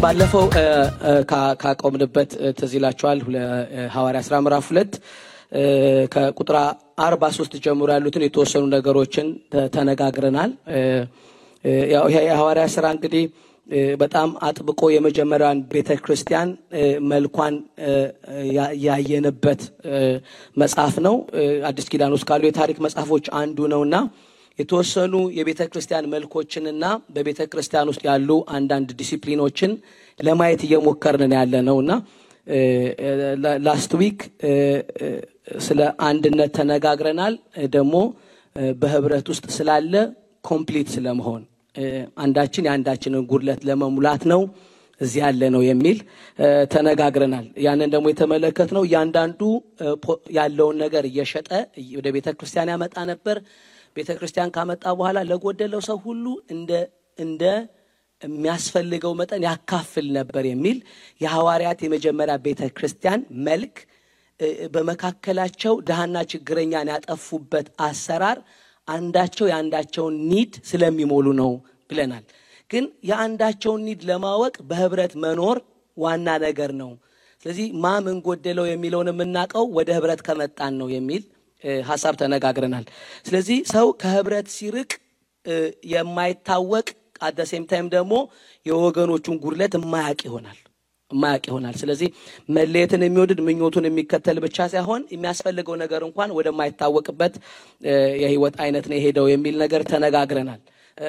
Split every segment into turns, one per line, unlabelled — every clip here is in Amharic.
ባለፈው ካቆምንበት ተዚላችኋል ሐዋርያ ሥራ ምዕራፍ 2 ከቁጥር 43 ጀምሮ ያሉትን የተወሰኑ ነገሮችን ተነጋግረናል። ያው የሐዋርያ ሥራ እንግዲህ በጣም አጥብቆ የመጀመሪያውን ቤተክርስቲያን መልኳን ያየነበት መጽሐፍ ነው። አዲስ ኪዳን ውስጥ ካሉ የታሪክ መጽሐፎች አንዱ ነውና የተወሰኑ የቤተክርስቲያን መልኮችንና በቤተክርስቲያን ውስጥ ያሉ አንዳንድ ዲሲፕሊኖችን ለማየት እየሞከርን ያለነውና ላስት ዊክ ስለ አንድነት ተነጋግረናል። ደግሞ በህብረት ውስጥ ስላለ ኮምፕሊት ስለመሆን አንዳችን ያንዳችንን ጉድለት ለመሙላት ነው እዚህ ያለ ነው የሚል ተነጋግረናል። ያንን ደግሞ የተመለከትነው ያንዳንዱ ያለውን ነገር እየሸጠ ወደ ቤተክርስቲያን ያመጣ ነበር። ቤተክርስቲያን ካመጣ በኋላ ለጎደለው ሰው ሁሉ እንደ የሚያስፈልገው መጠን ያካፍል ነበር የሚል የሐዋርያት የመጀመሪያ ቤተክርስቲያን መልክ በመካከላቸው ደሃና ችግረኛን ያጠፉበት አሰራር አንዳቸው ያንዳቸውን ኒድ ስለሚሞሉ ነው ብለናል። ግን ያንዳቸውን ኒድ ለማወቅ በህብረት መኖር ዋና ነገር ነው። ስለዚህ ማን ጎደለው የሚለውን የምናቀው ወደ ህብረት ከመጣን ነው የሚል ሐሳብ ተነጋግረናል። ስለዚህ ሰው ከህብረት ሲርቅ የማይታወቅ at the same time ደግሞ የወገኖቹን ጉድለት የማያውቅ ይሆናል። ስለዚህ መለየትን የሚወድድ ምኞቱን የሚከተል ብቻ ሳይሆን የሚያስፈልገው ነገር እንኳን ወደማይታወቅበት የህይወት አይነት ነው ሄደው የሚል ነገር ተነጋግረናል።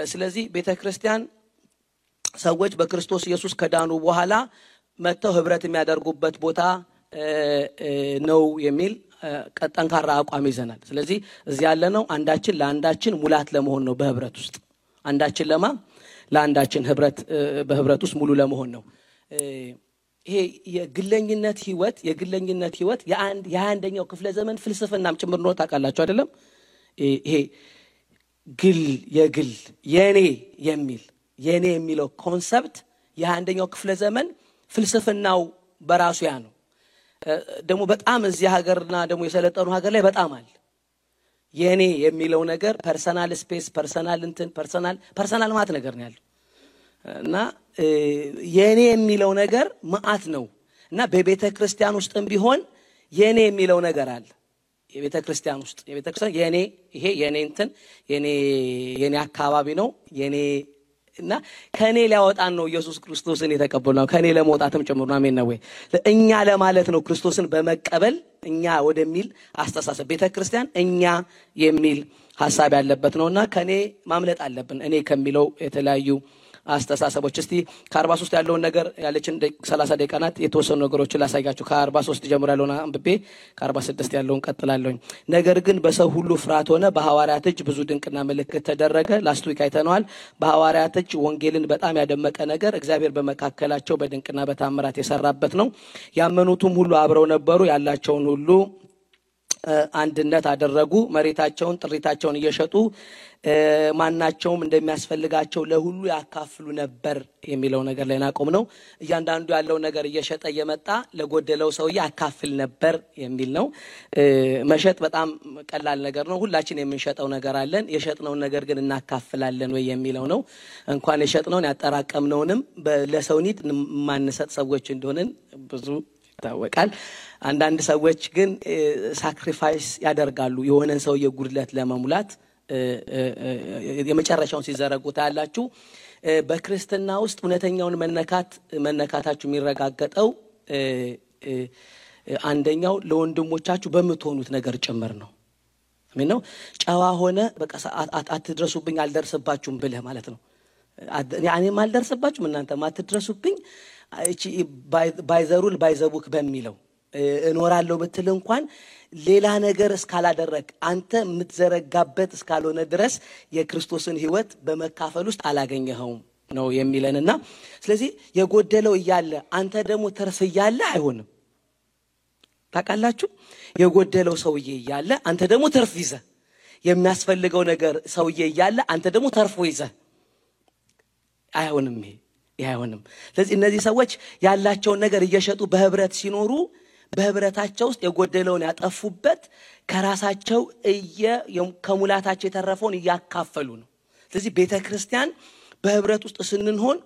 ስለዚህ ቤተክርስቲያን ሰዎች በክርስቶስ ኢየሱስ ከዳኑ በኋላ መተው ህብረት የሚያደርጉበት ቦታ ነው የሚል ጠንካራ አቋም ይዘናል። ስለዚህ እዚህ ያለነው አንዳችን ለአንዳችን ሙላት ለመሆን ነው። በህብረት ውስጥ አንዳችን ለአንዳችን በህብረት ውስጥ ሙሉ ለመሆን ነው። ይሄ የግለኝነት ህይወት የአንደኛው ክፍለ ዘመን ፍልስፍናም ጭምር ነው። ታውቃላችሁ አይደለም? ይሄ የግል የኔ የሚለው ኮንሰፕት የአንደኛው ክፍለ ዘመን ፍልስፍናው በራሱ ያ ነው። ደግሞ በጣም እዚህ ሀገርና ደግሞ የሰለጠኑ ሀገር ላይ በጣም አለ የኔ የሚለው ነገር ፐርሰናል ስፔስ ፐርሰናል ማለት ነገር ነው ያለው እና የኔ የሚለው ነገር ማአት ነው እና በቤተክርስቲያን ውስጥም ቢሆን የኔ የሚለው ነገር አለ። የቤተክርስቲያን የኔ አካባቢ ነው የኔ እና ከኔ ሊያወጣን ነው ኢየሱስ ክርስቶስን የተቀበልነው ከኔ ለመውጣትም ጭምር ነው። አሜን ነው ወይ? እኛ ለማለት ነው ክርስቶስን በመቀበል እኛ ወደሚል አስተሳሰብ ቤተክርስቲያን እኛ የሚል ሐሳብ ያለበት ነውና ከኔ ማምለጥ አለብን እኔ ከሚለው የተለያዩ አስተሳሰቦች። እስቲ ከ43 ያለውን ነገር ያለችን 30 ደቂቃ ናት። የተወሰኑ ነገሮችን ላሳያችሁ። ከ43 ጀምሮ ያለውን አንብቤ ከ46 ያለውን ቀጥላለሁ። ነገር ግን በሰው ሁሉ ፍርሃት ሆነ፣ በሐዋርያት እጅ ብዙ ድንቅና ምልክት ተደረገ። ላስት ዊክ አይተነዋል። በሐዋርያት እጅ ወንጌልን በጣም ያደመቀ ነገር እግዚአብሔር በመካከላቸው በድንቅና በታምራት የሰራበት ነው። ያመኑትም ሁሉ አብረው ነበሩ፣ ያላቸውን ሁሉ አንድነት አደረጉ። መሬታቸውን ጥሪታቸውን እየሸጡ ማናቸውም እንደሚያስፈልጋቸው ለሁሉ ያካፍሉ ነበር የሚለው ነገር ላይ ናቆም ነው። እያንዳንዱ ያለው ነገር እየሸጠ እየመጣ ለጎደለው ሰው ያካፍል ነበር የሚል ነው። መሸጥ በጣም ቀላል ነገር ነው። ሁላችን የምንሸጠው ነገር አለን። የሸጥነውን ነገር ግን እናካፍላለን ወይ የሚለው ነው። እንኳን የሸጥነውን ያጠራቀምነውንም ለሰው ኒድ ማንሰጥ ሰዎች እንደሆነን ብዙ ይታወቃል። አንዳንድ ሰዎች ግን ሳክሪፋይስ ያደርጋሉ የሆነን ሰው የጉድለት ለመሙላት የመጨረሻውን ሲዘረጉት ያላችሁ በክርስትና ውስጥ እውነተኛውን መነካታችሁ የሚረጋገጠው አንደኛው ለወንድሞቻችሁ በመትሆኑት ነገር ጭምር ነው። አሜን ነው። ጨዋ ሆነ በቃ አትድረሱብኝ አልደርስባችሁም ብለህ ማለት ነው። እኔም አልደርስባችሁም እናንተም አትድረሱብኝ እቺ ባይዘሩል ባይዘቡክ በሚለው እኖራለሁ ብትል እንኳን ሌላ ነገር እስካላደረክ አንተ የምትዘረጋበት እስካልሆነ ድረስ የክርስቶስን ህይወት በመካፈል ውስጥ አላገኘኸውም ነው የሚለንና ስለዚህ የጎደለው እያለ አንተ ደግሞ ተርፍ እያለ አይሆንም። ታውቃላችሁ? የጎደለው ሰውዬ እያለ አንተ ደግሞ ተርፍ ይዘህ የሚያስፈልገው ነገር ሰውዬ እያለ አንተ ደግሞ ተርፎ ይዘህ አይሆንም። ይሄ አይሆንም። ስለዚህ እነዚህ ሰዎች ያላቸውን ነገር እየሸጡ በህብረት ሲኖሩ በህብረታቸው ውስጥ የጎደለውን ያጠፉበት ከራሳቸው ከሙላታቸው የተረፈውን ያካፈሉ ነው ስለዚህ ቤተክርስቲያን በህብረት ውስጥ ስንሆን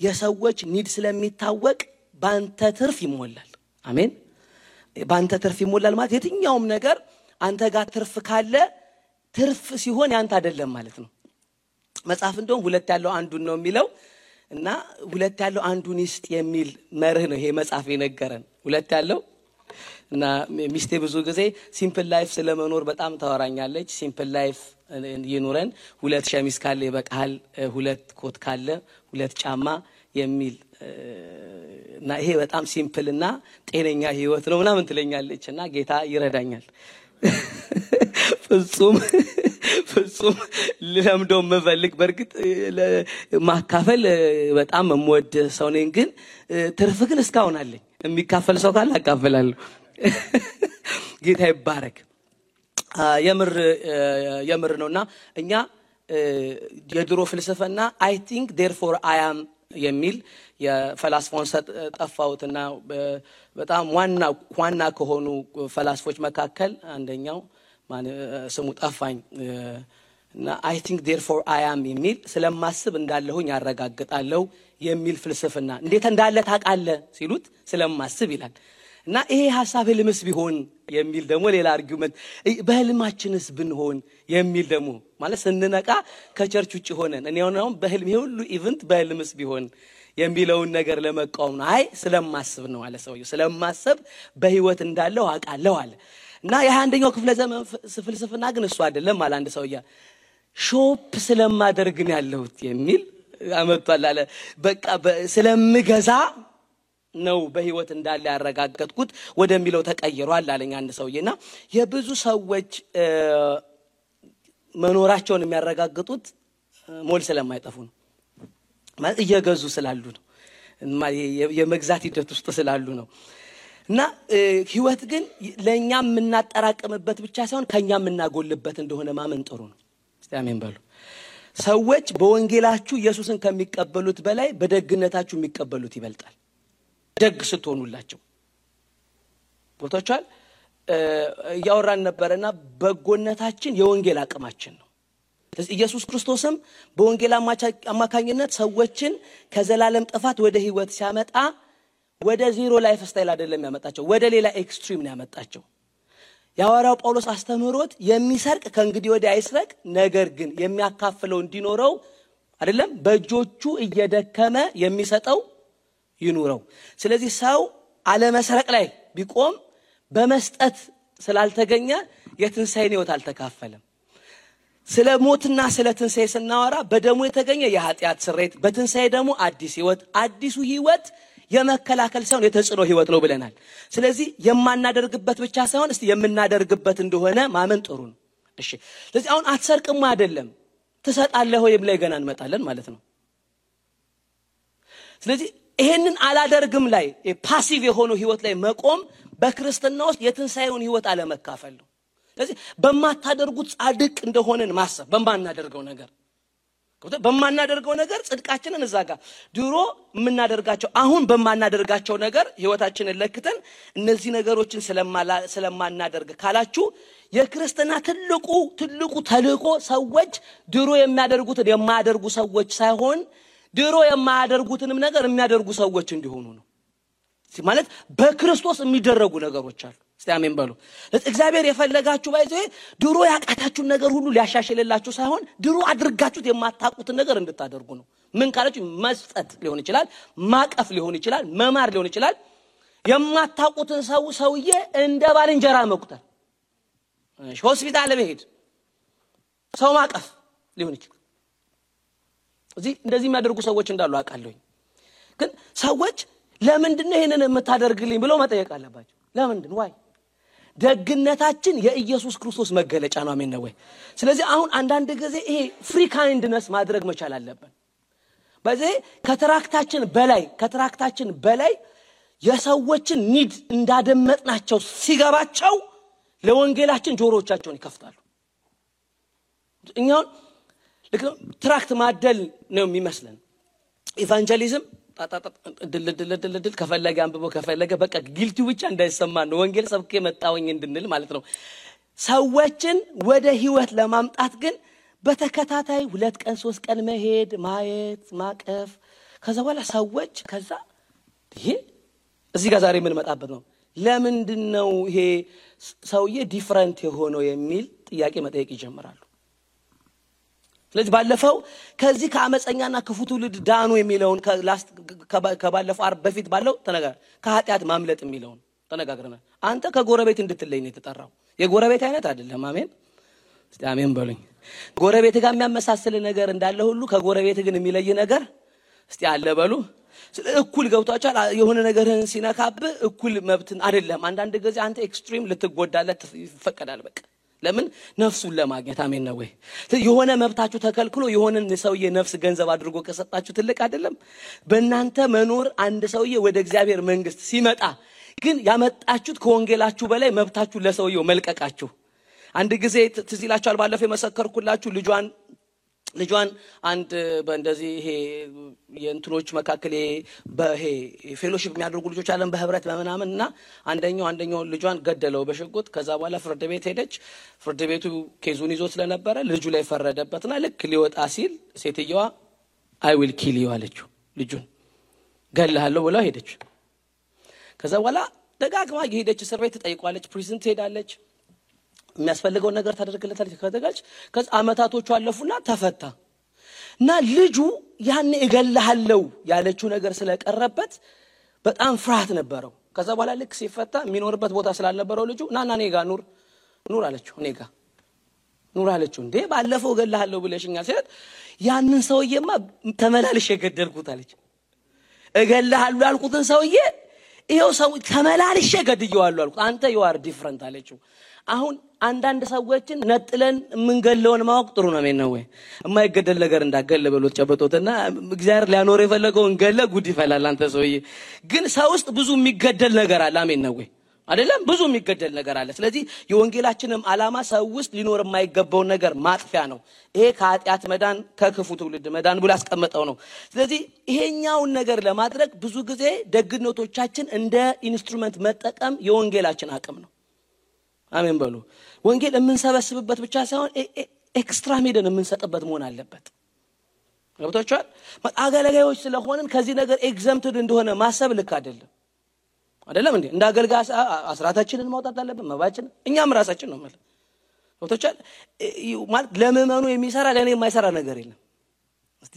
የሰዎች ኒድ ስለሚታወቅ ባንተ ትርፍ ይሞላል አሜን ባንተ ትርፍ ይሞላል ማለት የትኛውም ነገር አንተ ጋር ትርፍ ካለ ትርፍ ሲሆን ያንተ አይደለም ማለት ነው መጽሐፍ እንደውም ሁለት ያለው አንዱን ነው የሚለው እና ሁለት ያለው አንዱን ይስጥ የሚል መርህ ነው ይሄ መጽሐፍ የነገረን ሁለት ያለው እና ሚስቴ ብዙ ጊዜ ሲምፕል ላይፍ ስለመኖር በጣም ታወራኛለች ሲምፕል ላይፍ ይኑረን ሁለት ሸሚዝ ካለ ይበቃል ሁለት ኮት ካለ ሁለት ጫማ የሚል እና ይሄ በጣም ሲምፕል እና ጤነኛ ህይወት ነው ምናምን ትለኛለችና ጌታ ይረዳኛል ፍጹም ለምዶም መፈልክ በርግጥ ማካፈል በጣም መወድ ሰው ነኝ ግን ትርፍ ግን እስካሁን አለኝ የሚካፈል ሰው ካለ አካፈላለሁ ጌታ ይባረክ የምር ነውና እኛ የድሮ ፍልስፍና I think therefore I am የሚል የፈላስፋውን ጠፋውትና በጣም ዋና ከሆኑ ፈላስፎች መካከል አንደኛው ስሙ ጠፋኝ እና I think therefore I am የሚል ስለማስብ እንዳለሁኝ ያረጋግጣለሁ የሚል ፍልስፍና እንዴት እንዳለ ታውቃለህ ሲሉት ስለማስብ ይላል እና ይሄ ሐሳብ ህልምስ ቢሆን የሚል ደግሞ ሌላ አርጊውመንት በህልማችንስ ብንሆን የሚል ደግሞ ማለት ስንነቃ ከቸርች ውጪ ሆነን እኔ አሁን በህልም ሁሉ ኢቨንት በህልምስ ቢሆን የሚለውን ነገር ለመቃወም ነው አይ ስለማስብ ነው አለ ሰውየው ስለማስብ በህይወት እንዳለው አውቃለሁ አለ እና የ21ኛው ክፍለ ዘመን ፍልስፍና ግን እሱ አይደለም አለ አንድ ሰውያ ሾፕ ስለማደርግ ነው ያለሁት የሚል አመጣለ አለ በቃ ስለምገዛ ነው በህይወት እንዳለ ያረጋግጥኩት ወደሚለው ተቀይሯል አለኝ አንድ ሰውዬና የብዙ ሰዎች መኖራቸውን የሚያረጋግጡት ሞል ስለማይጠፉ ነው ማለት እየገዙ ስላሉ ነው የመግዛት ሂደት ውስጥ ስላሉ ነው እና ህይወት ግን ለኛም እናጠራቀምበት ብቻ ሳይሆን ከኛም እናጎልበት እንደሆነ ማመን ጥሩ ነው እስቲ አሜን በሉ ሰዎች በወንጌላችሁ ኢየሱስን ከሚቀበሉት በላይ በደግነታችሁ የሚቀበሉት ይበልጣል ደግ ስትሆኑላቸው ቦታቻል ያወራን ነበርና በጎነታችን የወንጌል አቅማችን ነው ኢየሱስ ክርስቶስም በወንጌል አማካኝነት ሰዎችን ከዘላለም ጥፋት ወደ ህይወት ሲያመጣ ወደ ዜሮ ላይፍ ስታይል አይደለም ያመጣቸው ወደ ሌላ ኤክስትሪም ነው ያመጣቸው ያወራው ጳውሎስ አስተምህሮት የሚሰርቅ ከእንግዲህ ወዲህ አይስረቅ ነገር ግን የሚያካፍለው እንዲኖረው አይደለም በእጆቹ እየደከመ የሚሰጠው ይኑረው ስለዚህ ሰው አለ መስረቅ ላይ ቢቆም በመስጠት ስላልተገኘ የትንሳኤን ህይወት አልተካፈለም ስለ ሞትና ስለ ትንሳኤ ስናወራ በደሙ የተገኘ የኃጢአት ስርየት በትንሳኤ ደግሞ አዲስ ህይወት አዲሱ ህይወት የመከላከል ሳይሆን የተጽኖ ህይወት ነው ብለናል ስለዚህ የማናደርግበት ብቻ ሳይሆን እስቲ የምናደርግበት እንደሆነ ማመን ጥሩ ነው እሺ ስለዚህ አሁን አትሰርቅም አይደለም ትሰጣለህ ወይ ብለ ገና እንመጣለን ማለት ነው ስለዚህ ይሄንን አላደርግም ላይ ፓሲቭ የሆነው ህይወት ላይ መቆም በክርስቲያና ውስጥ የትንሳኤውን ህይወት አለመካፈል ነው ስለዚህ በማታደርጉት ጻድቅ እንደሆነን ማሰብ በማናደርገው ነገር ጽድቃችንን እዛጋ ድሮ ምናደርጋቸው አሁን በማናደርጋቸው ነገር ህይወታችንን ለክተን እነዚህ ነገሮችን ስለማናደርግ ካላችሁ የክርስቲያና ትልቁ ተልእኮ ሰዎች ድሮ የሚያደርጉትን የማያደርጉ ሰዎች ሳይሆን ድሮ የማያደርጉትንም ነገር የሚያደርጉ ሰዎች እንዲሆኑ ነው ማለት በክርስቶስ የሚደረጉ ነገሮች አሉ እስቲ አሜን በሉ እግዚአብሔር የፈለጋችሁ ባይዘ ድሮ ያቃታችሁ ነገር ሁሉ ሊያሻሽልላችሁ ሳይሆን ድሮ አድርጋችሁት የማታቁት ነገር እንድታደርጉ ነው ምን ካላችሁ መስጠት ሊሆን ይችላል ማቀፍ ሊሆን ይችላል መማር ሊሆን ይችላል የማታቁትን ሰውዬ እንደ ባልንጀራ መቁጠር ሆስፒታል በሄድ ሰው ማቀፍ ሊሆን ይችላል እዚህ እንደዚህ የሚያደርጉ ሰዎች እንዳሉ አቃለሁኝ ግን ሰዎች ለምንድነው ይሄንን የምታደርግልኝ ብለው መጠየቅ አለባቸው ለምንድን ዋይ ደግነታችን የኢየሱስ ክርስቶስ መገለጫ ነው አሜን ነው ወይ ስለዚህ አሁን አንዳንድ ጊዜ ይሄ ፍሪ ካይንድነስ ማድረግ መቻል አለብን በዚህ ከትራክታችን በላይ የሰዎችን ኒድ እንዳደመጥናቸው ሲገባቸው ለወንጌላችን ጆሮቻቸውን ይከፍታሉ እኛው ትራክት ማደል ነው የሚመስለን ኢቫንጀሊዝም ድል ከፈለገ አንብቦ ከፈለገ በቃ ጊልቲው ብቻ እንዳይሰማን ነው ወንጌል ሰብኬ መጣወኝ እንድንል ማለት ነው። ሰዎችን ወደ ህይወት ለማምጣት ግን በተከታታይ 2 ቀን 3 ቀን መሄድ ማየት ማቀፍ ከዛ በኋላ ሰዎች ከዛ ይሄ እዚህ ጋር ዛሬ ምን መጣበት ነው ለምንድነው ይሄ ሰውዬ ዲፈረንት የሆነው የሚል ጥያቄ መጠየቅ ይጀምራሉ። ስለዚህ ባለፈው ከዚህ ከአመፀኛና ክፉ ትውልድ ዳኑ የሚለውን ከባለፈው አርብ በፊት ባለው ተነጋግረን ከኃጢአት ማምለጥ የሚለውን ተነጋግረናል። አንተ ከጎረቤት እንድትለይ ነው የተጠራው። የጎረቤት አይነት አይደለም። አሜን እስቲ አሜን በሉኝ። ጎረቤት ጋር የሚያመሳስል ነገር እንዳለ ሁሉ ከጎረቤት ግን የሚለይ ነገር እስቲ አለ በሉ። እኩል ገብቷቻል። የሆነ ነገርን ሲነካብ እኩል መብትን አይደለም። አንዳንድ ጊዜ አንተ ኤክስትሪም ልትጎዳለት ይፈቀዳል። በቃ ለምን ነፍሱን ለማግኘት አሜን ነው ወይ? የሆነ መብታችሁ ተከልክሎ የሆነን ሰውዬ ነፍስ ገንዘብ አድርጎ ከሰጣችሁ ትልቅ አይደለም? በእናንተ መኖር አንድ ሰውዬ ወደ እግዚአብሔር መንግስት ሲመጣ ግን ያመጣችሁት ከወንጌላችሁ በላይ መብታችሁ ለሰውየው መልቀቃችሁ። አንድ ጊዜ ትዝ ይላችኋል ባለፈው የመሰከርኩላችሁ ልጇን አንድ በእንደዚህ ይሄ የእንትኖች መካከለ በይሄ ፌሎሺፕ የሚያደርጉ ልጆች አለን በህብረት በመናመንና አንደኛው ልጇን ገደለው በሽጉጥ። ከዛ በኋላ ፍርድ ቤት ሄደች። ፍርድ ቤቱ ኬዙን ይዞ ስለነበረ ልጁ ላይ ፈረደበትና ልክ ሊወጣ ሲል ሴትየዋ አይ ዊል ኪል ዩ አለችው። ልጁን ገለሃለሁ ብላ ሄደች። ከዛ በኋላ ደጋግማ ሄደች እስር ቤት ተጠይቋለች። ፕሪዝን ትሄዳለች። የሚያስፈልገው ነገር ታደርግለታለች። ከዛ አመታቶቹ አለፉና ተፈታ። እና ልጁ ያን እገለሃለሁ ያለችው ነገር ስለቀረበት በጣም ፍርሃት ነበረው። ከዛ በኋላ ልክ ሲፈታ የሚኖርበት ቦታ ስላልነበረው ልጁ ናና እኔ ጋር ኑር አለችው። እኔ ጋር ኑር አለችው። እንዴ ባለፈው እገለሃለሁ ብለሽኛል ሲላት ያንን ሰውዬማ ተመላልሽ የገደልኩት አለች። እገለሃለሁ ያልኩትን ሰውዬ ይሄው ሰው ተመላልሽ ገድየዋለሁ አልኩት። አንተ you are different አለችው። አሁን አንዳንድ ሰዎችን ነጥለን ምንገለውን ማወቅ ጥሩ ነው ማለት ወይ? የማይገደል ነገር እንዳገለ በሎት ጨበጦትና እግዚአብሔር ሊያኖር የፈለገውን ገለ ጉድ ይፈላል። አንተ ሰውዬ ግን ሰው ውስጥ ብዙ የሚገደል ነገር አለ። አሜን ነው ወይ? አይደለም? ብዙ የሚገደል ነገር አለ። ስለዚህ የወንጌላችንም ዓላማ ሰው ውስጥ ሊኖር የማይገባው ነገር ማጥፊያ ነው። ይሄ ከኃጢአት መዳን ከክፉ ትውልድ መዳን ብሎ ያስቀመጠው ነው። ስለዚህ ይሄኛውን ነገር ለማድረግ ብዙ ጊዜ ደግነቶቻችን እንደ ኢንስትሩመንት መጠቀም የወንጌላችን አቅም ነው። አሜን በሉ። ወንጌል የምንሰበስብበት ብቻ ሳይሆን ኤክስትራ ሜደን የምንሰጥበት መሆን አለበት። ገብታችኋል? አገልጋዮች ስለሆነን ከዚህ ነገር ኤግዘምፕትድ እንደሆነ ማሰብ ልክ አይደለም እንዴ? እንደ አገልጋይ አስራታችንን ማውጣት አለብን። መባችን እኛም ራሳችን ነው ማለት ገብታችኋል? ማለት ለምእመኑ የሚሰራ ለኔ የማይሰራ ነገር የለም። እስቲ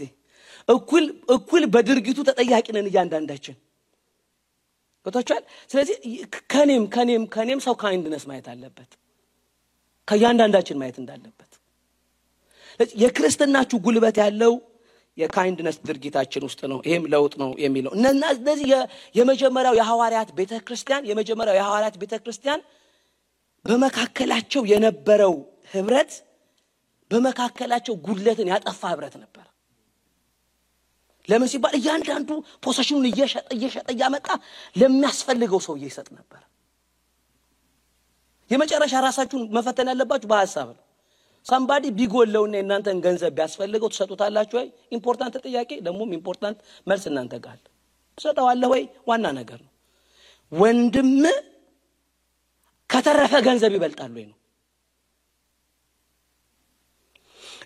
እኩል በድርጊቱ ተጠያቂ ነን እያንዳንዳችን። ገብታችኋል? ስለዚህ ከኔም ሰው ካይንድነስ ማየት አለበት። ከያንዳንዳችን ማየት እንዳለበት። ስለዚህ የክርስትናችሁ ጉልበት ያለው የካይንድነስ ድርጊታችን ውስጥ ነው። ይሄም ለውጥ ነው የሚለው እነዚህ የመጀመሪያው የሐዋርያት ቤተክርስቲያን በመካከላቸው የነበረው ህብረት በመካከላቸው ጉድለትን ያጠፋ ህብረት ነበር። ለምን ሲባል እያንዳንዱ ፖሴሽኑን እየሸጠ ያመጣ ለሚያስፈልገው ሰው ይሰጥ ነበር። የመጨረሻ ራሳችሁን መፈተን ያለባችሁ በሐሳብ ነው። somebody ቢጎለውና እናንተን ገንዘብ ቢያስፈልገው ተሰጡታላችሁ ወይ? ኢምፖርታንት ጥያቄ ደሞም ኢምፖርታንት መልስ እናንተ ጋር ተሰጣዋለህ ወይ? ዋና ነገር ነው። ወንድም ከተረፈ ገንዘብ ይበልጣል ወይ ነው።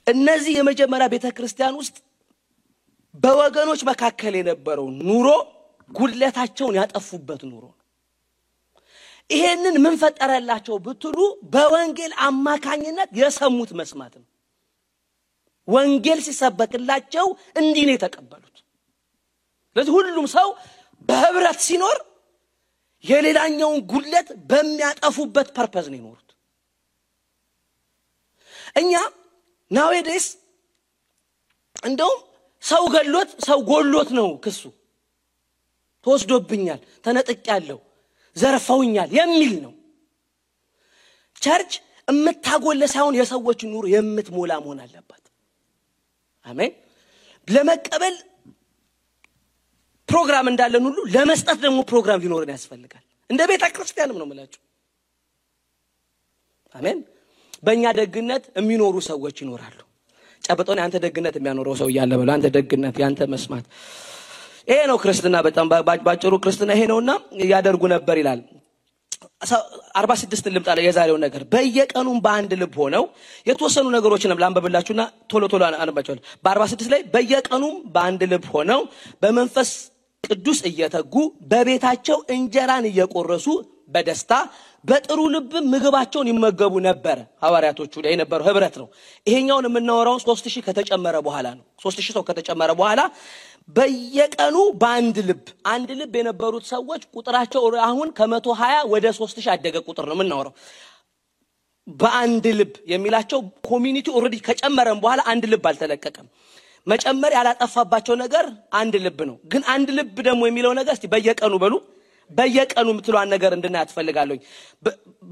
እነዚህ የመጀመሪያ ቤተክርስቲያን ውስጥ በወገኖች መካከል የነበረው ኑሮ ጉድለታቸውን ያጠፉበት ኑሮ ነው። ይሄንን ምን ፈጠረላቸው ብትሉ በወንጌል አማካኝነት የሰሙት መስማት ነው። ወንጌል ሲሰበክላቸው እንዲህ ነው የተቀበሉት። ስለዚህ ሁሉም ሰው በህብረት ሲኖር የሌላኛውን ጉድለት በሚያጠፉበት ፐርፐዝ ነው የሚኖሩት። እኛ nowadays እንደውም ሰው ገሎት ሰው ጎሎት ነው ክሱ። ተወስዶብኛል፣ ተነጥቄያለሁ፣ ዘርፈውኛል የሚል ነው። ቸርች እምታጎለ ሳይሆን የሰዎች ኑሮ የምትሞላ መሆን አለበት። አሜን። ለመቀበል ፕሮግራም እንዳለን ሁሉ ለመስጠት ደግሞ ፕሮግራም ሊኖርን ያስፈልጋል። እንደ ቤተ ክርስቲያንም ነው ማለት ነው። አሜን። በእኛ ደግነት የሚኖሩ ሰዎች ይኖራሉ። ጨበጦን አንተ ደግነት የሚያኖረው ሰው ያለ በለው አንተ ደግነት ያንተ መስማት ይሄ ነው ክርስትና በጣም ባጭሩ ክርስትና ይሄ ነውና ያደርጉ ነበር ይላል 46 ልምጣ የዛሬው ነገር በየቀኑም በአንድ ልብ ሆነው የተወሰኑ ነገሮችን ላንበብላችሁና ቶሎ አንባቸዋለሁ በ46 ላይ በየቀኑም በአንድ ልብ ሆነው በመንፈስ ቅዱስ እየተጉ በቤታቸው እንጀራን እየቆረሱ በደስታ በጥሩ ልብ ምግባቸውን ይመገቡ ነበር ሐዋርያቶቹ ላይ የነበረው ህብረት ነው ይሄኛውን የምናወራው 3000 ከተጨመረ በኋላ ነው 3000 ሰው ከተጨመረ በኋላ በየቀኑ በአንድ ልብ የነበሩት ሰዎች ቁጥራቸው አሁን ከ120 ወደ 3000 አደገ ቁጥር ነው የምናወራው በአንድ ልብ የሚላቸው ኮሚኒቲ ኦሬዲ ከጨመረን በኋላ አንድ ልብ አልተለቀቀም መጨመር ያላጠፋባቸው ነገር አንድ ልብ ነው ግን አንድ ልብ ደግሞ የሚለው ነገር እስቲ በየቀኑ በሉ በየቀኑ ምትሏን ነገር እንድናያት ፈልጋለሁ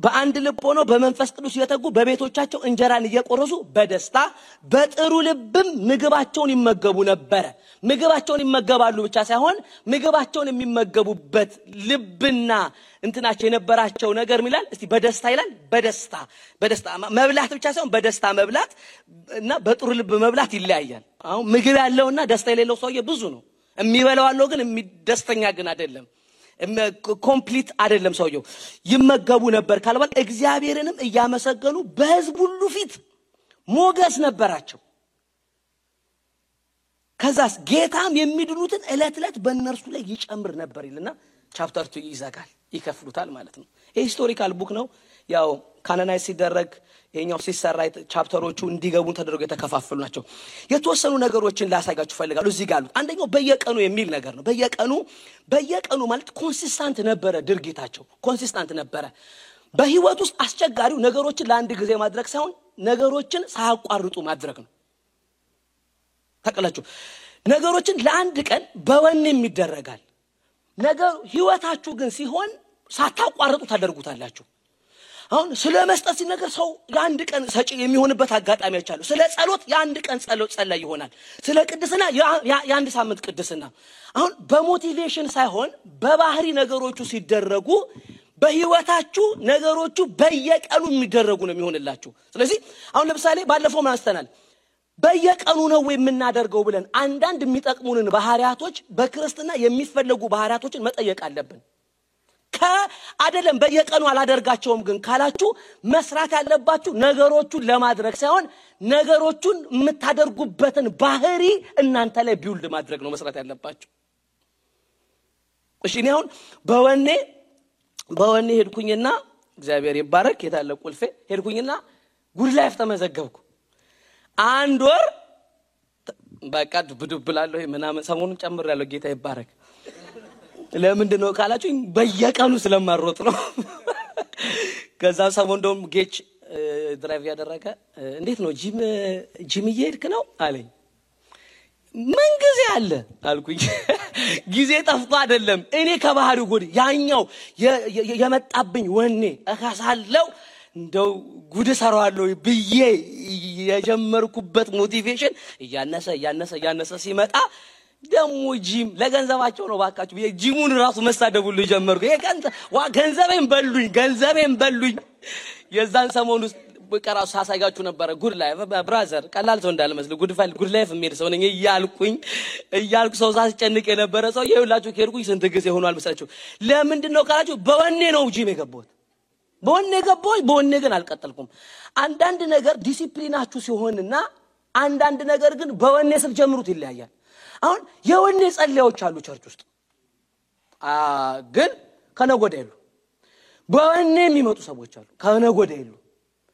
በአንድ ልብ ሆኖ በመንፈስ ቅዱስ እየተጉ በቤቶቻቸው እንጀራን እየቆረሱ በደስታ በጥሩ ልብም ምግባቸውን ይመገቡ ነበር ምግባቸውን ይመገባሉ ብቻ ሳይሆን ምግባቸውን የሚመገቡበት ልብና እንትናቸው የነበራቸው ነገር ይላል እስቲ በደስታ ይላል በደስታ መብላት ብቻ ሳይሆን በደስታ መብላት እና በጥሩ ልብ መብላት ይለያያል አሁን ምግብ ያለውና ደስታ የሌለው ሰውዬ ብዙ ነው የሚበላው አለው ግን ደስተኛ ግን አይደለም ኮምፕሊት አይደለም ሰውየው ይመገቡ ነበር ካልባል እግዚአብሔርንም እያመሰገኑ በሕዝብ ሁሉ ፊት ሞገስ ነበራቸው ከዛስ ጌታም የሚድኑትን እለት በእነርሱ ላይ ይጨምር ነበር ይልና ቻፕተር 2 ይዘጋል ይከፍሉታል ማለት ነው ሂስቶሪካል ቡክ ነው ያው ካናናይዝ ሲደረግ የኛው ሲሰራ ቻፕተሮቹ እንዲገቡ ተደርጎ የተከፋፈሉ ናቸው የተወሰኑ ነገሮችን ላሳያችሁ ፈልጋለሁ እዚህ ጋር አንደኛው በየቀኑ የሚል ነገር ነው በየቀኑ ማለት ኮንሲስታንት ነበረ ድርጊታቸው ኮንሲስታንት ነበረ በህይወት ውስጥ አስቸጋሪው ነገሮችን ለአንድ ጊዜ ማድረግ ሳይሆን ነገሮችን ሳያቋርጡ ማድረግ ነው ተቀላችሁ ነገሮችን ለአንድ ቀን በወኔም ይደረጋል ነገር ህይወታችሁ ግን ሲሆን ሳታቋርጡ ታደርጉታላችሁ አሁን ስለ መስጠት ሲነገር ሰው የአንድ ቀን ሰጪ የሚሆንበት አጋጣሚዎች አሉ ስለ ጸሎት የአንድ ቀን ጸሎት ይሆናል ስለ ቅድስና የአንድ ሳምንት ቅድስና አሁን በሞቲቬሽን ሳይሆን በባህሪ ነገሮቹ ሲደረጉ በህይወታችሁ ነገሮቹ በየቀኑ የሚደረጉ ነው የሚሆንላችሁ ስለዚህ አሁን ለምሳሌ ባለፈው ማስተናል በየቀኑ ነው የምናደርገው ብለን አንዳንድ የሚጠቅሙንን ባህሪያቶች በክርስትና የሚፈልጉ ባህሪያቶችን መጠየቅ አለብን ከአደለም በየቀኑ አላደርጋቸውም ግን ካላችሁ መስራት ያለባችሁ ነገሮቹን ለማድረግ ሳይሆን ነገሮቹን የምታደርጉበትን ባህሪ እናንተ ላይ ቢውልድ ማድረግ ነው መስራት ያለባችሁ እሺ ነው በወኔ ሄድኩኝና እግዚአብሔር ይባረክ የታለ ቁልፌ ሄድኩኝና ጉድ ላይፍ ተመዘገብኩ አንድ ወር በቃ ብድብላለሁ ምናምን ሰሞኑን ጨምሬያለሁ ጌታ ይባረክ ለምንድነው ካላችሁ በየቀኑ ስለማሮጥ ነው ከዛ ሰሞን ደም ጌች ድራይቭ ያደረገ እንዴት ነው ጂም እየሄድክ ነው አለኝ ምን ጊዜ አለ አልኩኝ ጊዜ ጠፍቶ አይደለም እኔ ከባህሪው ጎድ ያኛው የመጣብኝ ወኔ እካሳለው እንደው ጉድ ሰራዋለሁ ብዬ የጀመርኩበት ሞቲቬሽን ያነሰ ሲመጣ ደሞ ጂም ለገንዘባቸው ነው ባካችሁ ጂሙን ራሱ መሳደቡሉ ጀመርኩ ገንዘቤን በሉኝ የዛን ሰሞን ውስጥ በቀራው ሳሳጋችሁ ነበር ጉድ ላይፍ ብራዘር ቀላል ሰው እንዳልመስል ጉድ ላይፍ የሚል ሰው ነኝ እያልኩ ሰው ሳስጨንቅ የነበረ ሰው ይኸውላችሁ ከርኩኝ ስንት ጊዜ ሆኗል መሰላችሁ ለምንድነው ካላችሁ በወኔ ነው ጂም የገባሁት በወኔ ግን አልቀጠልኩም አንዳንድ ነገር ዲሲፕሊናችሁ ሲሆንና አንዳንድ ነገር ግን በወኔ ስትጀምሩት ይለያያል አሁን የወኔ ጸልያዎች አሉ ቸርች ውስጥ ግን ከነጎደሉ በወኔ የሚመጡ ሰዎች አሉ ከነጎደሉ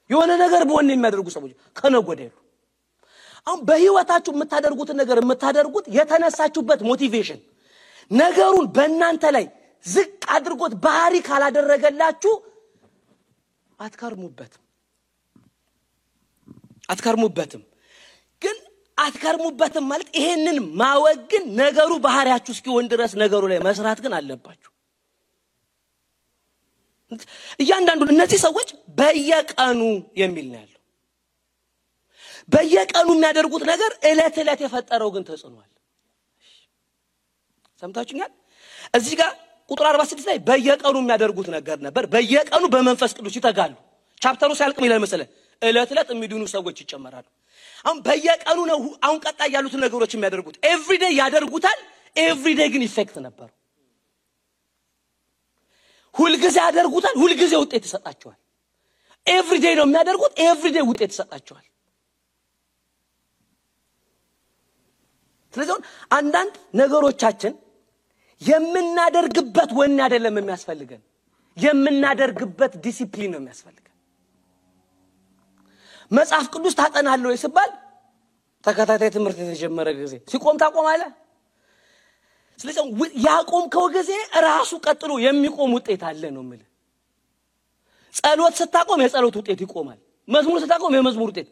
የሆነ ነገር በወኔ የሚያደርጉ ሰዎች ከነጎደሉ አሁን በህይወታችሁ የምታደርጉት የተነሳችሁበት ሞቲቬሽን ነገሩን በእናንተ ላይ ዝቅ አድርጎት ባህሪ ካላደረገላችሁ አትከርሙበትም ግን አትከርሙበትም ማለት ይሄንን ማወግን ነገሩ ባህሪያችሁ እስኪሆን ድረስ ነገሩ ላይ መስራት ግን አለባችሁ እያንዳንዱ እነዚህ ሰዎች በየቀኑ የሚል ነው ያለው በየቀኑ የሚያደርጉት ነገር እለት የፈጠረው ግን ተጽኗል ሰምታችሁኛል እዚህ ጋር ቁጥር 46 ላይ በየቀኑ የሚያደርጉት ነገር ነበር በየቀኑ በመንፈስ ቅዱስ ይተጋሉ ቻፕተሩ ሲያልቅ ምን ይላል መሰለ እለት የሚድኑ ሰዎች ይጨመራሉ አሁን በየቀኑ ነው አሁን ቀጣይ ያሉት ነገሮች የሚያደርጉት ኤቭሪዴይ ያደርጉታል ኤቭሪዴይ ግን ኢፌክት ነበር ሁሉ ጊዜ ያደርጉታል ሁሉ ጊዜ ውጤት ይሰጣቸዋል ኤቭሪዴይ ነው የሚያደርጉት ኤቭሪዴይ ውጤት ይሰጣቸዋል ስለዚህ አንዳንድ ነገሮቻችን የምናደርግበት ወኔ አይደለም የሚያስፈልገን የምናደርግበት ዲሲፕሊን ነው የሚያስፈልገን መጽሐፍ ቅዱስ ታጠናለህ ይስባል ተከታታይ ትምህርት የተጀመረ ጊዜ ሲቆም ታቆማለህ ስለዚህ ያቆምከው ጊዜ ራሱ ቀጥሎ የሚቆም ውጤት አለ ነው ማለት ጸሎት ስታቆም የጸሎት ውጤት ይቆማል መዝሙር ስታቆም የመዝሙር ውጤት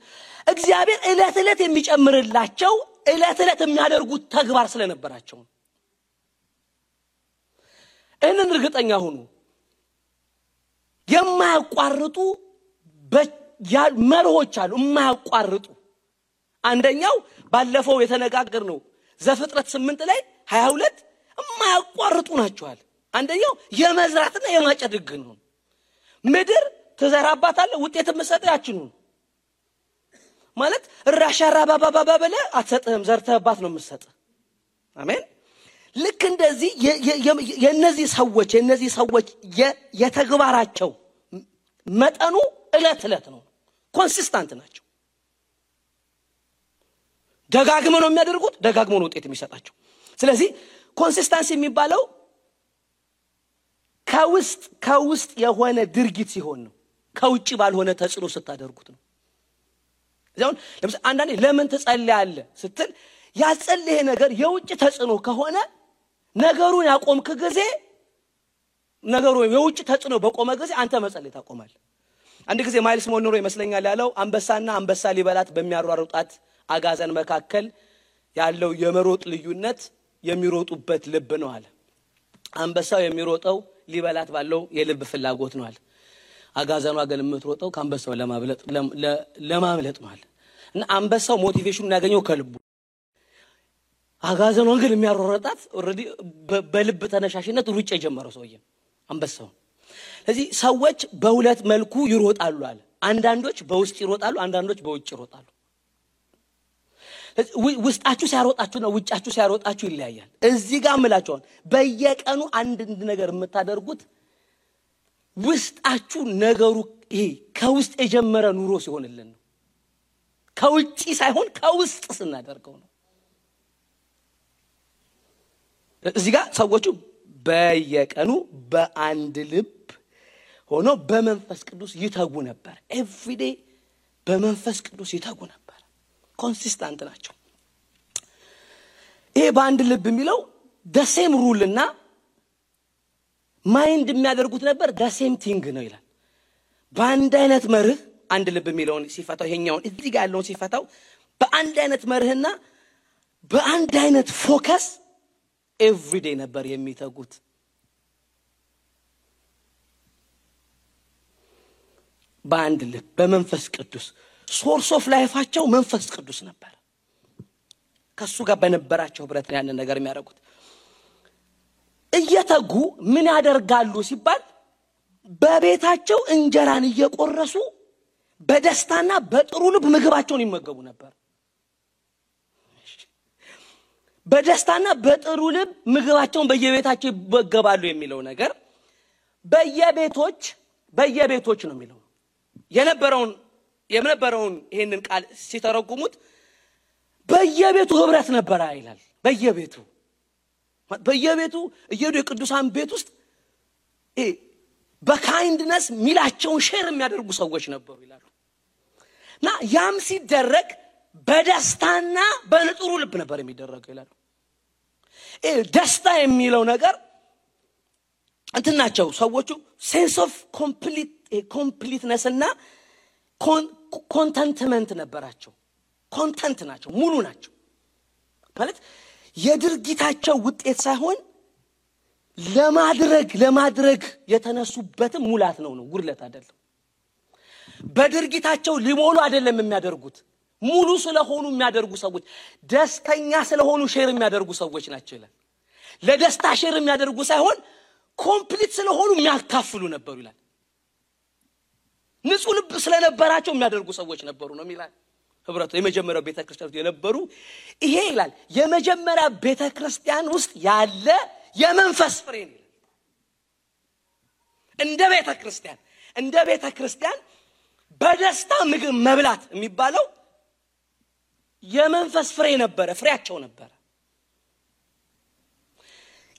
እግዚአብሔር እለት የሚጨምርላቸው እለት የሚያደርጉት ተግባር ስለነበራቸው እነን እርግጠኛ ሆኑ የማያቋርጡ መርሆች አሉ የማያቋርጡ አንደኛው ባለፈው የተነጋገርነው ዘፍጥረት 8 ላይ 22 የማያቋርጡ ናቸዋል አንደኛው የመዝራትና የማጨድ ሕግ ነው ምድር ተዘራባታለ ውጤት መስጠታችን ነው ማለት ራሻራ ባባባባ በለ አትሰጥህም ዘርተህባት ነው መስጠት አሜን ልክ እንደዚህ የነዚህ ሰዎች የተግባራቸው መጠኑ እለት ነው ኮንሲስታንት ናቸው ደጋግመው ነው የሚያደርጉት ደጋግመው ነው ውጤት የሚሰጣቸው ስለዚህ ኮንሲስታንሲ የሚባለው ከውስጥ የሆነ ድርጊት ሲሆን ነው ከውጪ ባልሆነ ተጽዕኖ ስታደርጉት ነው ዛውን ለምሳሌ አንዳንዴ ለምን ትጸልያለህ ስትል ያጸልየ ነገር የውጭ ተጽዕኖ ከሆነ ነገሩን ያቆምክ ጊዜ ነገሩ የውጭ ተጽዕኖ በቆመ ጊዜ አንተ መጸለይ ታቆማለህ አንድ ጊዜ ማይልስ ሞኖሮ ይመስለኛል ያለው አንበሳ ሊበላት በሚያሯሩጣት አጋዘን መካከል ያለው የመሮጥ ልዩነት የሚሮጡበት ልብ ነው አለ አንበሳው የሚሮጠው ሊበላት ባለው የልብ ፍላጎት ነው አለ አጋዘኗ ግን የምትሮጠው ከአንበሳው ለማምለጥ ነው አለ እና አንበሳው ሞቲቬሽኑን ያገኘው ከልቡ አጋዘኗ ግን የሚያሯሯጣት ኦሬዲ በልብ ተነሻሽነት ሩጫ የጀመረው ሰውዬ አንበሳው ስለዚህ ሰዎች በሁለት መልኩ ይሮጣሉ አለ አንዳንዶች በውስጥ ይሮጣሉ አንዳንዶች በውጭ ይሮጣሉ ውስጣችሁ ሲያሮጣችሁ ነው ውጫችሁ ሲያሮጣችሁ ይለያያል እዚህ ጋር ምላችሁ በየቀኑ አንድ ነገር የምታደርጉት ውስጣችሁ ነገሩ ይሄ ከውስጥ የጀመረ ኑሮ ሲሆንልን ነው ከውጪ ሳይሆን ከውስጥ ስናደርገው ነው እዚህ ጋር ሰዎቹ በየቀኑ በአንድ ልብ ሆኖ በመንፈስ ቅዱስ ይተጉ ነበር ኤቭሪዴይ በመንፈስ ቅዱስ ይተጉ ነበር ኮንሲስታንት ናቸው ይሄ በአንድ ልብ የሚለው the same rule እና ማይንድ የሚያደርጉት ነበር the same thing ነው ይላል በአንድ አይነት መርህ አንድ ልብ የሚለውን ሲፈታው ይሄኛውን እዚህ ጋር ያለውን ሲፈታው በአንድ አይነት መርህና በአንድ አይነት ፎከስ ኤቭሪዴይ ነበር የሚተጉት በአንድ ልብ በመንፈስ ቅዱስ ሶርስ ኦፍ ላይፋቸው መንፈስ ቅዱስ ነበር ከሱ ጋር በነበራቸው ህብረት ያንን ነገር የሚያደርጉት እየተጉ ምን ያደርጋሉ ሲባል በቤታቸው እንጀራን እየቆረሱ በደስታና በጥሩ ልብ ምግባቸውን ይመገቡ ነበር በደስታና በጥሩ ልብ ምግባቸውን በየቤታቸው ይመገባሉ የሚለው ነገር በየቤቶች ነው የሚለው የነበረውን ይሄንን ቃል ሲተረጉሙት በየቤቱ ህብረት ነበር አይላል በየቤቱ እየዱ የቅዱሳን ቤት ውስጥ በካይንድነስ ሚላቸውን ሼር የሚያደርጉ ሰዎች ነበሩ ይላሉና ያም ሲደረግ በደስታና በጥሩ ልብ ነበር የሚደረገው ይላሉ ደስታ የሚለው ነገር እንትናቸው ሰዎቹ ሴንስ ኦፍ ኮምፕሊትነስ እና ኮንተንትመንት ነበራቸው ኮንተንት ናቸው ሙሉ ናቸው ማለት የድርጊታቸው ውጤት ሳይሆን ለማድረግ የተነሱበትም ሙላት ነው ጉድለት አይደለም በድርጊታቸው ሊሞሉ አይደለም የሚያደርጉት ሙሉ ስለሆኑ የሚያደርጉ ሰዎች ደስተኛ ስለሆኑ ሼር የሚያደርጉ ሰዎች ናቸው ይላል ለደስታ ሼር የሚያደርጉ ሳይሆን ኮምፕሊት ስለሆኑ የሚያካፍሉ ነበሩ ይላል ንጹህ ልብ ስለነበራቸው የሚያደርጉ ሰዎች ነበሩ ነው የሚላል ህብረቱ የመጀመሪያው ቤተክርስቲያን የነበሩ ይሄ ይላል የመጀመሪያ ቤተክርስቲያን ውስጥ ያለ የመንፈስ ፍሬ ነው እንደ ቤተክርስቲያን በደስታ ምግብ መብላት የሚባለው የመንፈስ ፍሬ ነበረ ፍሬያቸው ነበረ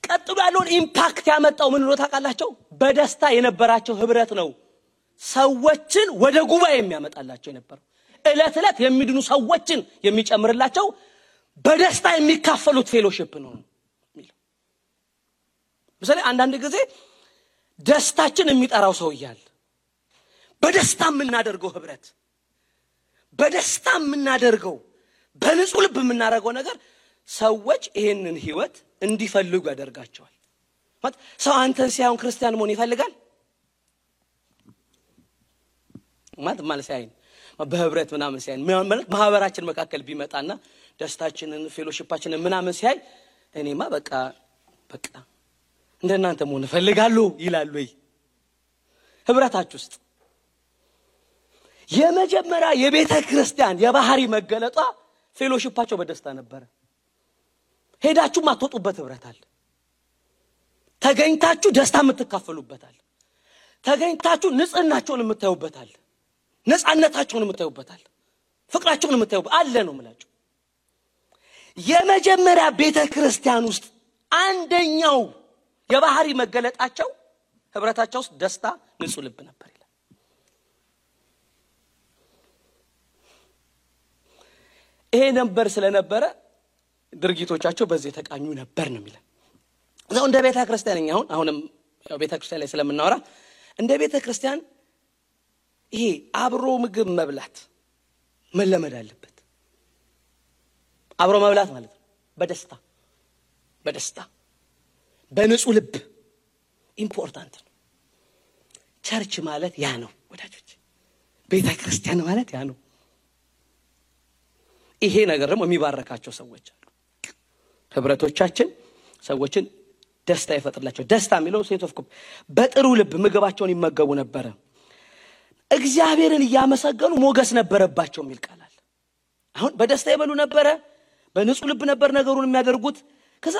ቀጥሎ ያለውን ኢምፓክት ያመጣው ምን ነው ታውቃላችሁ በደስታ የነበራቸው ህብረት ነው ሰዎችን ወደ ጉባኤ የሚያመጣላቸው የነበረው እለት የሚድኑ ሰዎችን የሚጨምርላቸው በደስታ የሚካፈሉት ፌሎሺፕ ነው የሚለው ምሳሌ አንዳንድ ጊዜ ደስታችን የሚጠራው ሰው ይያል በደስታ የምናደርገው ህብረት በደስታ የምናደርገው በንጹህ ልብ የምናደርገው ነገር ሰዎች ይሄንን ህይወት እንዲፈልጉ ያደርጋቸዋል ማለት ሰው አንተን ሲያዩን ክርስቲያን መሆን ይፈልጋል ማለት ሲያይን በህብረት ምናምን ሲያይን ማህበራችን መካከል ቢመጣና ደስታችንን ፌሎሺፓችንን ምናምን ሲያይ እኔማ በቃ እንደናንተ መሆን እፈልጋለሁ ይላል ወይ ህብረታችሁ ውስጥ የመጀመሪያ የቤተ ክርስቲያን የባህሪ መገለጧ ፌሎሺፓቸው በደስታ ነበር ሄዳችሁ ማትወጡበት ህብረት አለ ተገኝታችሁ ደስታ የምትካፈሉበት አለ ተገኝታችሁ ንጽህናችሁን የምታዩበት አለ ነፃነታችሁን የምታዩበት አለ ፍቅራችሁን የምታዩበት አለ ነው ማለት የመጀመሪያ ቤተ ክርስቲያን ውስጥ አንደኛው የባህሪ መገለጣቸው ህብረታቸው ውስጥ ደስታ ንጹህ ልብ ነበር ይላል ይሄ ነበር ስለነበረ ድርጊቶቻቸው በዚህ ተቃኙ ነበር ነው የሚለው ነው እንደ ቤተ ክርስቲያን አሁንም ቤተ ክርስቲያን ላይ ስለምናወራ እንደ ቤተ ክርስቲያን ይሄ አብሮ ምግብ መብላት መለመድ አለበት አብሮ መብላት ማለት ነው በደስታ በንጹህ ልብ ኢምፖርታንት ነው ቸርች ማለት ያ ነው ወዳጆች ቤተ ክርስቲያን ማለት ያ ነው ይሄ ነገር ደግሞ የሚባረካቸው ሰዎች አሉ ህብረቶቻችን ሰዎችን ደስታ ይፈጥርላቸው ደስታ የሚለው ሴንስ ኦፍ በጥሩ ልብ ምግባቸውን ይመገቡ ነበር እግዚአብሔርን ያመሰገኑ ሞገስ ነበረባቸው የሚል ቃል አለ አሁን በደስታ ይበሉ ነበር በንጹህ ልብ ነበር ነገሩን የሚያደርጉት ከዛ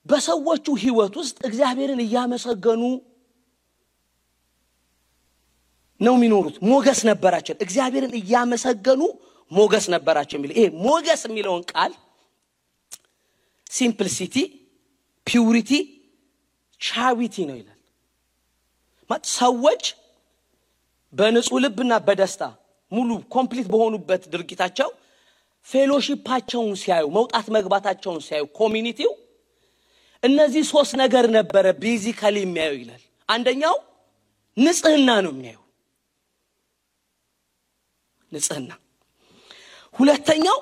በሰዎቹ ህይወት ውስጥ እግዚአብሔርን ያመሰገኑ ነው የሚኖሩት ሞገስ ነበራቸው እግዚአብሔርን ያመሰገኑ ሞገስ ነበራቸው የሚል ይሄ ሞገስ የሚለውን ቃል ሲምፕሊሲቲ ፒዩሪቲ ቻሪቲ ነው ይላል ማለት ሰዎች በንጹህ ልብና በደስታ ሙሉ ኮምፕሊት በሆኑበት ድርጊታቸው ፌሎሺፓቸውን ሲያዩ መውጣት መግባታቸውን ሲያዩ ኮሚኒቲው እነዚህ ሶስት ነገር ነበር ቤዚካሊ የሚያዩ ይላል አንደኛው ንጽህና ነው የሚያዩ ንጽህና ሁለተኛው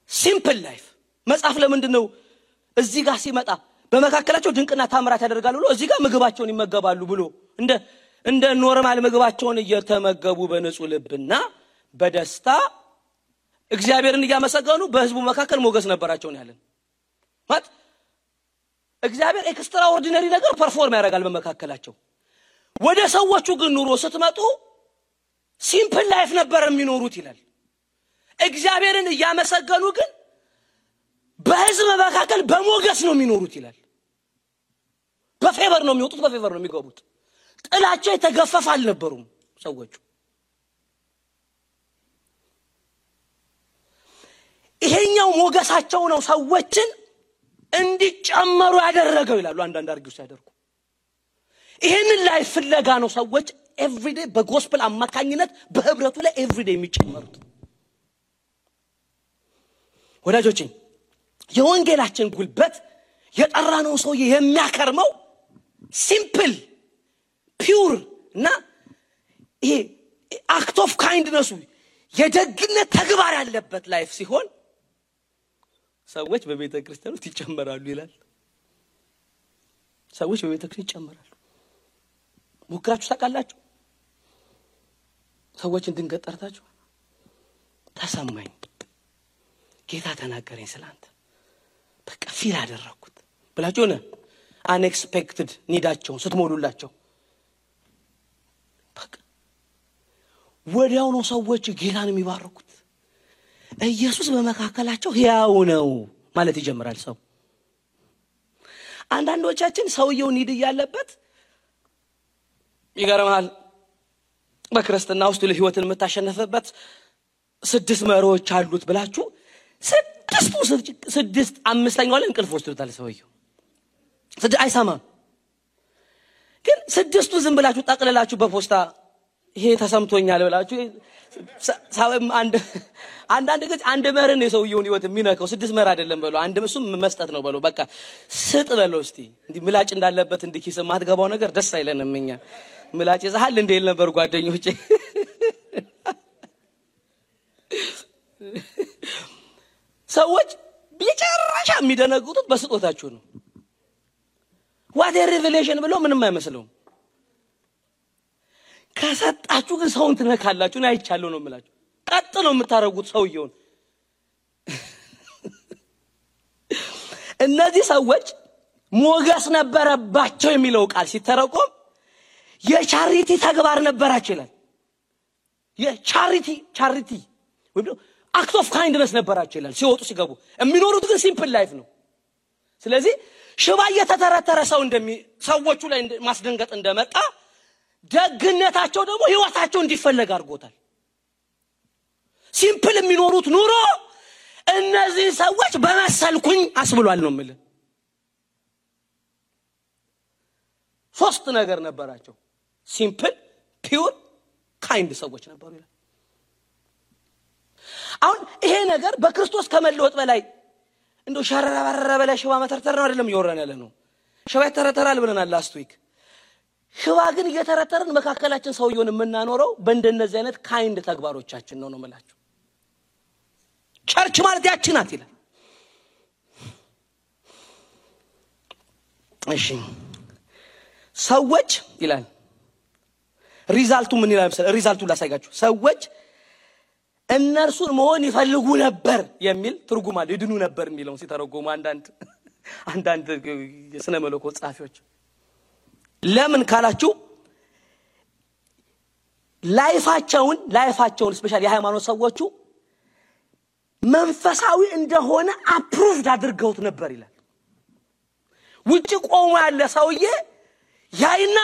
ሲምፕል ላይፍ መጽሐፍ ለምንድነው እዚህ ጋር ሲመጣ በመካከላቸው ድንቅና ታምራት ያደርጋሉ ብሎ እዚህ ጋር ምግባቸውን ይመገባሉ ብሎ እንደ ኖርማል ምግባቸውን እየተመገቡ በንጹህ ልብና በደስታ እግዚአብሔርን ያመሰገኑ በህዝቡ መካከል ሞገስ ነበራቸው ነው ያለን ማለት እግዚአብሔር ኤክስትራ ኦርዲነሪ ነገር ፐርፎርም ያደርጋል በመካከላቸው ወደ ሰዎቹ ግን ኑሮ ስትመጡ ሲምፕል ላይፍ ነበር የሚኖሩት ይላል እግዚአብሔርን ያመሰገኑ ግን በህዝብ መካከል በሞገስ ነው የሚኖሩት ይላል በፌቨር ነው የሚወጡት በፌቨር ነው የሚገቡት ጥላቸው የተገፈፈ አልነበሩም ሰዎቹ ይሄኛው ሞገሳቸው ነው ሰዎችን እንዲጨመሩ ያደረገው ይላሉ አንዳንድ አርጊውስ ያደርጉ ይሄንን ላይ ፍለጋ ነው ሰዎች ኤቭሪዴይ በጎስፔል አማካኝነት በህብረቱ ላይ ኤቭሪዴይ የሚጨመሩት ወዳጆቼ የወንጌላችን ጉልበት የጠራነው ሰው የሚያከርመው ሲምፕል ፒዩር እና ይሄ አክት ኦፍ ካይንድነስ የደግነት ተግባር ያለበት ላይፍ ሲሆን ሰዎች በቤተ ክርስቲያን ውስጥ ይጨመራሉ ይላል ሰዎች በቤተ ክርስቲያን ይጨመራሉ ሙክራችሁ ታውቃላችሁ ሰዎችን ድንገት ጠርታችሁ ተሰማኝ ጌታ ተናገረኝ ስላንተ በቃ ፊል አደረኩት ብላችሁ ነው አንኤክስፔክትድ ኒዳቸውን ስትሞሉላቸው በቃ ወዲያው ነው ሰዎች ጌታን የሚባርኩት ኢየሱስ በመካከላቸው ሕያው ነው ማለት ይጀምራል ሰው። አንዳንዶቻችን ሰውየው ኒድ ያለበት ይገርማል። በክርስትና ውስጥ ለህይወትን የምታሸነፈበት 6 መሮች አሉት ብላችሁ 6 5ኛው ላይ እንቅልፍ ወስዶታል ሰውየው። አይሰማም። ግን 6ቱ ዝም ብላችሁ ጠቅልላችሁ በፖስታ ይሄ ተሰምቶኛል ብላችሁ አንዳንድ ጊዜ አንድ መርን የሰውየውን ህይወት የሚነካው 6 መር አይደለም በለው አንድ እሱም መስጠት ነው በለው በቃ ስጥ በለው። እስቲ እንዲ ምላጭ እንዳለበት እንዲኪስ ማትገባው ነገር ደስ አይለንም እኛ። ምላጭ ይዛሃል እንደ ይል ነበር ጓደኞቼ። ሰዎች ቢጨራሻ የሚደነግጡት በስጦታችሁ ነው። what a revelation ብለው ምንም አይመስለውም። ከሰጣችሁ ግን ሰውን ትነካላችሁ ነው አይቻለው ነው የምላችሁ። ቀጥ ነው የምታረጉት ሰውየውን። እነዚህ ሰዎች ሞገስ ነበረባቸው የሚለው ቃል ሲተረጎም የቻሪቲ ተግባር ነበራቸው ይላል። የቻሪቲ ወይም አክት ኦፍ ካይንድነስ ነበራቸው ይላል። ሲወጡ ሲገቡ የሚኖሩት ግን ሲምፕል ላይፍ ነው። ስለዚህ ሽባ የተተረተረ ሰው ሰዎቹ ላይ ማስደንገጥ እንደመጣ ደግነታቸው ደግሞ ህይወታቸው እንዲፈለግ አድርጎታል። ሲምፕል የሚኖሩት ኑሮ እነዚህ ሰዎች በመሰልኩኝ አስብሏል ነው ማለት። 3 ነገር ነበራቸው። ሲምፕል ፒውር ካይንድ ሰዎች ነበሩ ይላል። አሁን ይሄ ነገር በክርስቶስ ከመለወጥ በላይ እንደው ሸረረበረ በላይ ሽባ መተርተር ነው አይደለም ይወራን ያለ ነው። ሽባ ተረተራል ብለናል ላስት ዊክ። ሽባ ግን እየተረተርን መካከላችን ሰውየውን የምናኖረው በእንደነዚህ አይነት ካይንድ ተግባሮቻችን ነው ማለት። ቸርች ማለት ያቺ ናት ይላል። እሺ ሰዎች ይላል ሪዛልቱ ምን ይላል መሰለህ? ሪዛልቱ ላሳያችሁ። ሰዎች እነርሱን መሆን ይፈልጉ ነበር የሚል ትርጉም አለ። ይድኑ ነበር የሚለውን ሲተረጎሙ አንዳንድ የሥነ መለኮት ጻፊዎች ለምን ካላችሁ ላይፋቸውን ስፔሻሊ የሃይማኖት ሰዎቹ መንፈሳዊ እንደሆነ አፕሩቭድ አድርገውት ነበር ይላል። ውጪ ቆሞ ያለ ሰውዬ ያይና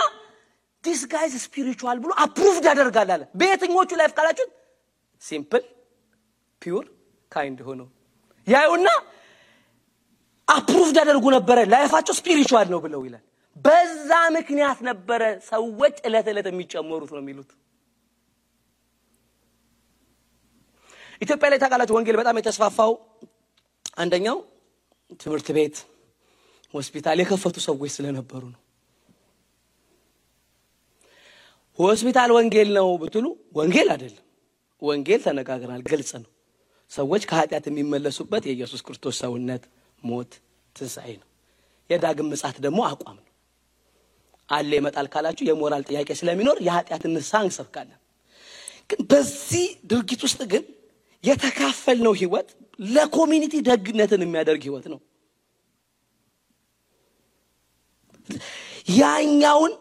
this guy is spiritual ብሎ አፕሩቭድ ያደርጋል አለ። በየትኞቹ ላይፍ ካላችሁ ሲምፕል ፒውር ካይንድ ሆኖ ያዩና አፕሩቭድ ያደርጉ ነበር ላይፋቸው ስፒሪቹዋል ነው ብለው ይላል። በዛ ምክንያት ነበር ሰዎች እለት የሚጨመሩት ነው የሚሉት። ኢትዮጵያ ላይ ታውቃላችሁ ወንጌል በጣም የተስፋፋው አንደኛው ትምህርት ቤት ሆስፒታል የከፈቱ ሰዎች ስለነበሩ ነው። ሆስፒታል ወንጌል ነው ብትሉ ወንጌል አይደለም። ወንጌል ተነጋግረናል ግልጽ ነው። ሰዎች ከኃጢአት የሚመለሱበት የኢየሱስ ክርስቶስ ሰውነት ሞት ትንሣኤ ነው። የዳግም ምጽአት ደግሞ አቋም ነው። አለ ይመጣል ካላችሁ የሞራል ጥያቄ ስለሚኖር የኃጢአትን ንስሐ እንሰብካለን። ግን በዚህ ድርጊት ውስጥ ግን የተካፈልነው ህይወት ለኮሚኒቲ ደግነትን የሚያደርግ ህይወት ነው። ያኛውን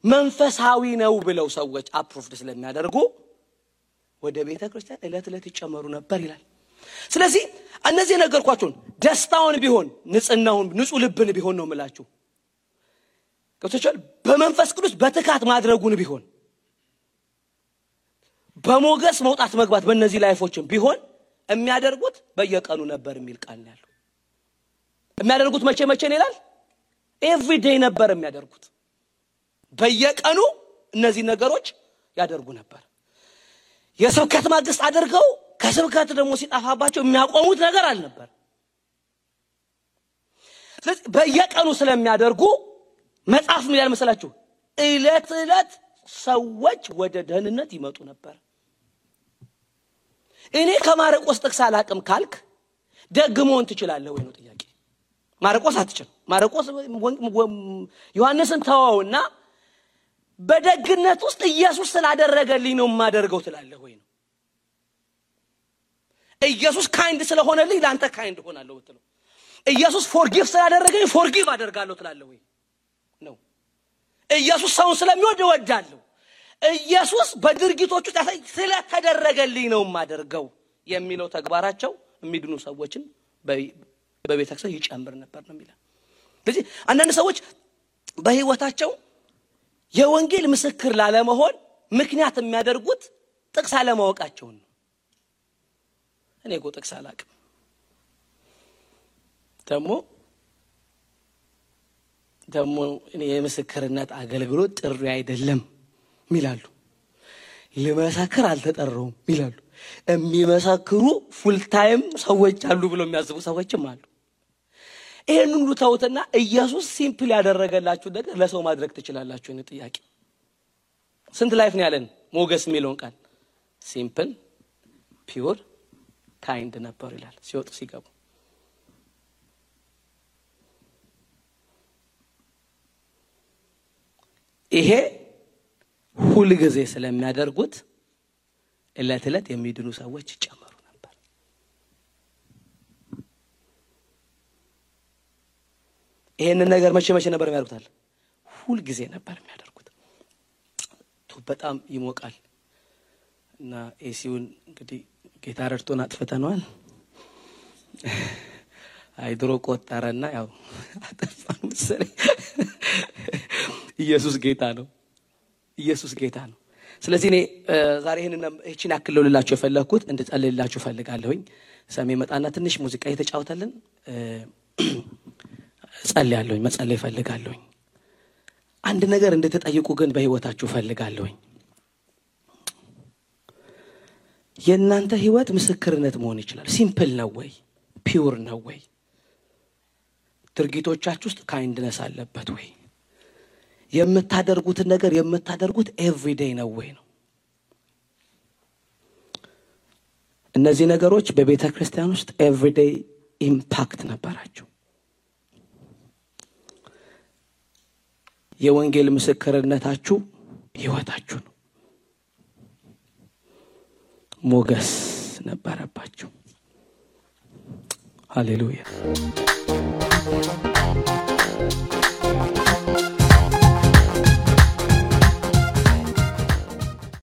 መንፈሳዊ ነው ብለው ሰዎች አፕሩቭድ ስለሚያደርጉ ወደ ቤተ ክርስቲያን እለት ይጨመሩ ነበር ይላል። ስለዚህ እነዚህ ነገርኳችሁን ደስታውን ቢሆን ንጽህናውን ንጹህ ልብን ቢሆን ነው የምላችሁ ከተቻለ በመንፈስ ቅዱስ በትካት ማድረጉን ቢሆን በሞገስ መውጣት መግባት በእነዚህ ላይፎችን ቢሆን የሚያደርጉት በየቀኑ ነበር የሚል ቃል ነው ያለው። የሚያደርጉት መቼ ነው ይላል? ኤቭሪ ዴይ ነበር የሚያደርጉት። በየቀኑ እነዚህ ነገሮች ያደርጉ ነበር። የስብከት ማግስት አድርገው ከስብከት ደግሞ ሲጣፋባቸው የሚያቆሙት ነገር አልነበር። ስለዚህ በየቀኑ ስለሚያደርጉ መጽሐፍ ምን ይላል መሰላችሁ? እለት ሰዎች ወደ ደህንነት ይመጡ ነበር። እኔ ከማርቆስ ጥቅስ አላቅም ካልክ ደግሞን ትችላለህ ወይ ነው ጥያቄ። ማርቆስ አትችል። ማርቆስ ዮሐንስን ተወውና በደግነት ውስጥ ኢየሱስ ስላደረገልኝ ነው ማደርገው ትላለህ ወይ ነው። ኢየሱስ ካይንድ ስለሆነልኝ ላንተ ካይንድ ሆናለሁ ብትለው ኢየሱስ ፎርጊቭ ስላደረገኝ ፎርጊቭ አደርጋለሁ ትላለህ ወይ ነው። ኢየሱስ ሰውን ስለሚወድ እወዳለሁ። ኢየሱስ በድርጊቶቹ ስለተደረገልኝ ነው ማደርገው የሚለው ተግባራቸው የሚድኑ ሰዎችን በቤተክርስቲያን ይጨምር ነበር ነው የሚለው። ስለዚህ አንዳንድ ሰዎች በህይወታቸው የወንጌል ምስክር ላለመሆን ምክንያት የሚያደርጉት ጥቅስ አለማወቃቸው ነው። እኔ እኮ ጥቅስ አላውቅም ደግሞ እኔ የምስክርነት አገልግሎት ጥሪ አይደለም ይላሉ። ለመሰከር አልተጠራውም ይላሉ። የሚመሰክሩ ፉል ታይም ሰዎች አሉ ብሎ የሚያስቡ ሰዎችም አሉ። ይሄን ሁሉ ተውትና ኢየሱስ ሲምፕል ያደረገላችሁ ነገር ለሰው ማድረግ ትችላላችሁ ነው ጥያቄ። ስንት ላይፍ ነው ያለን? ሞገስ የሚለውን ቃል ሲምፕል ፒውር ካይንድ ነበር ይላል ሲወጡ ሲገቡ። ይሄ ሁሉ ጊዜ ስለሚያደርጉት እለት የሚድኑ ሰዎች ይጨመሩ ነበር። ይሄንን ነገር መቼ ነበር የሚያደርጉት? ሁሉ ጊዜ ነበር የሚያደርጉት። በጣም ይሞቃል እና ኤሲውን እንግዲህ ጌታ ረድቶን አጥፍተናል። አይድሮ ቆጣረና ያው አጠፋን መሰለኝ። ኢየሱስ ጌታ ነው። ስለዚህ እኔ ዛሬ ይሄን ያክልልላችሁ የፈለኩት እንድጸልይላችሁ ፈልጋለሁኝ። ሰሜ መጣና ትንሽ ሙዚቃ እየተጫወተልን ጸልያለሁኝ፣ መጸለይ ፈልጋለሁኝ። አንድ ነገር እንድትጠይቁ ግን በህይወታችሁ ፈልጋለሁኝ። የእናንተ ህይወት ምስክርነት መሆን ይችላል። ሲምፕል ነው ወይ? ፒውር ነው ወይ? ድርጊቶቻችሁ ውስጥ ካይንድነስ አለበት ወይ? የምታደርጉት ነገር የምታደርጉት ኤቭሪዴይ ነው ወይ ነው? እነዚህ ነገሮች በቤተክርስቲያን ውስጥ ኤቭሪዴይ ኢምፓክት ነበራቸው። የወንጌል ምስክርነታችሁ ህይወታችሁ ነው። ሞገስ ነበረባችሁ። ሃሌሉያ።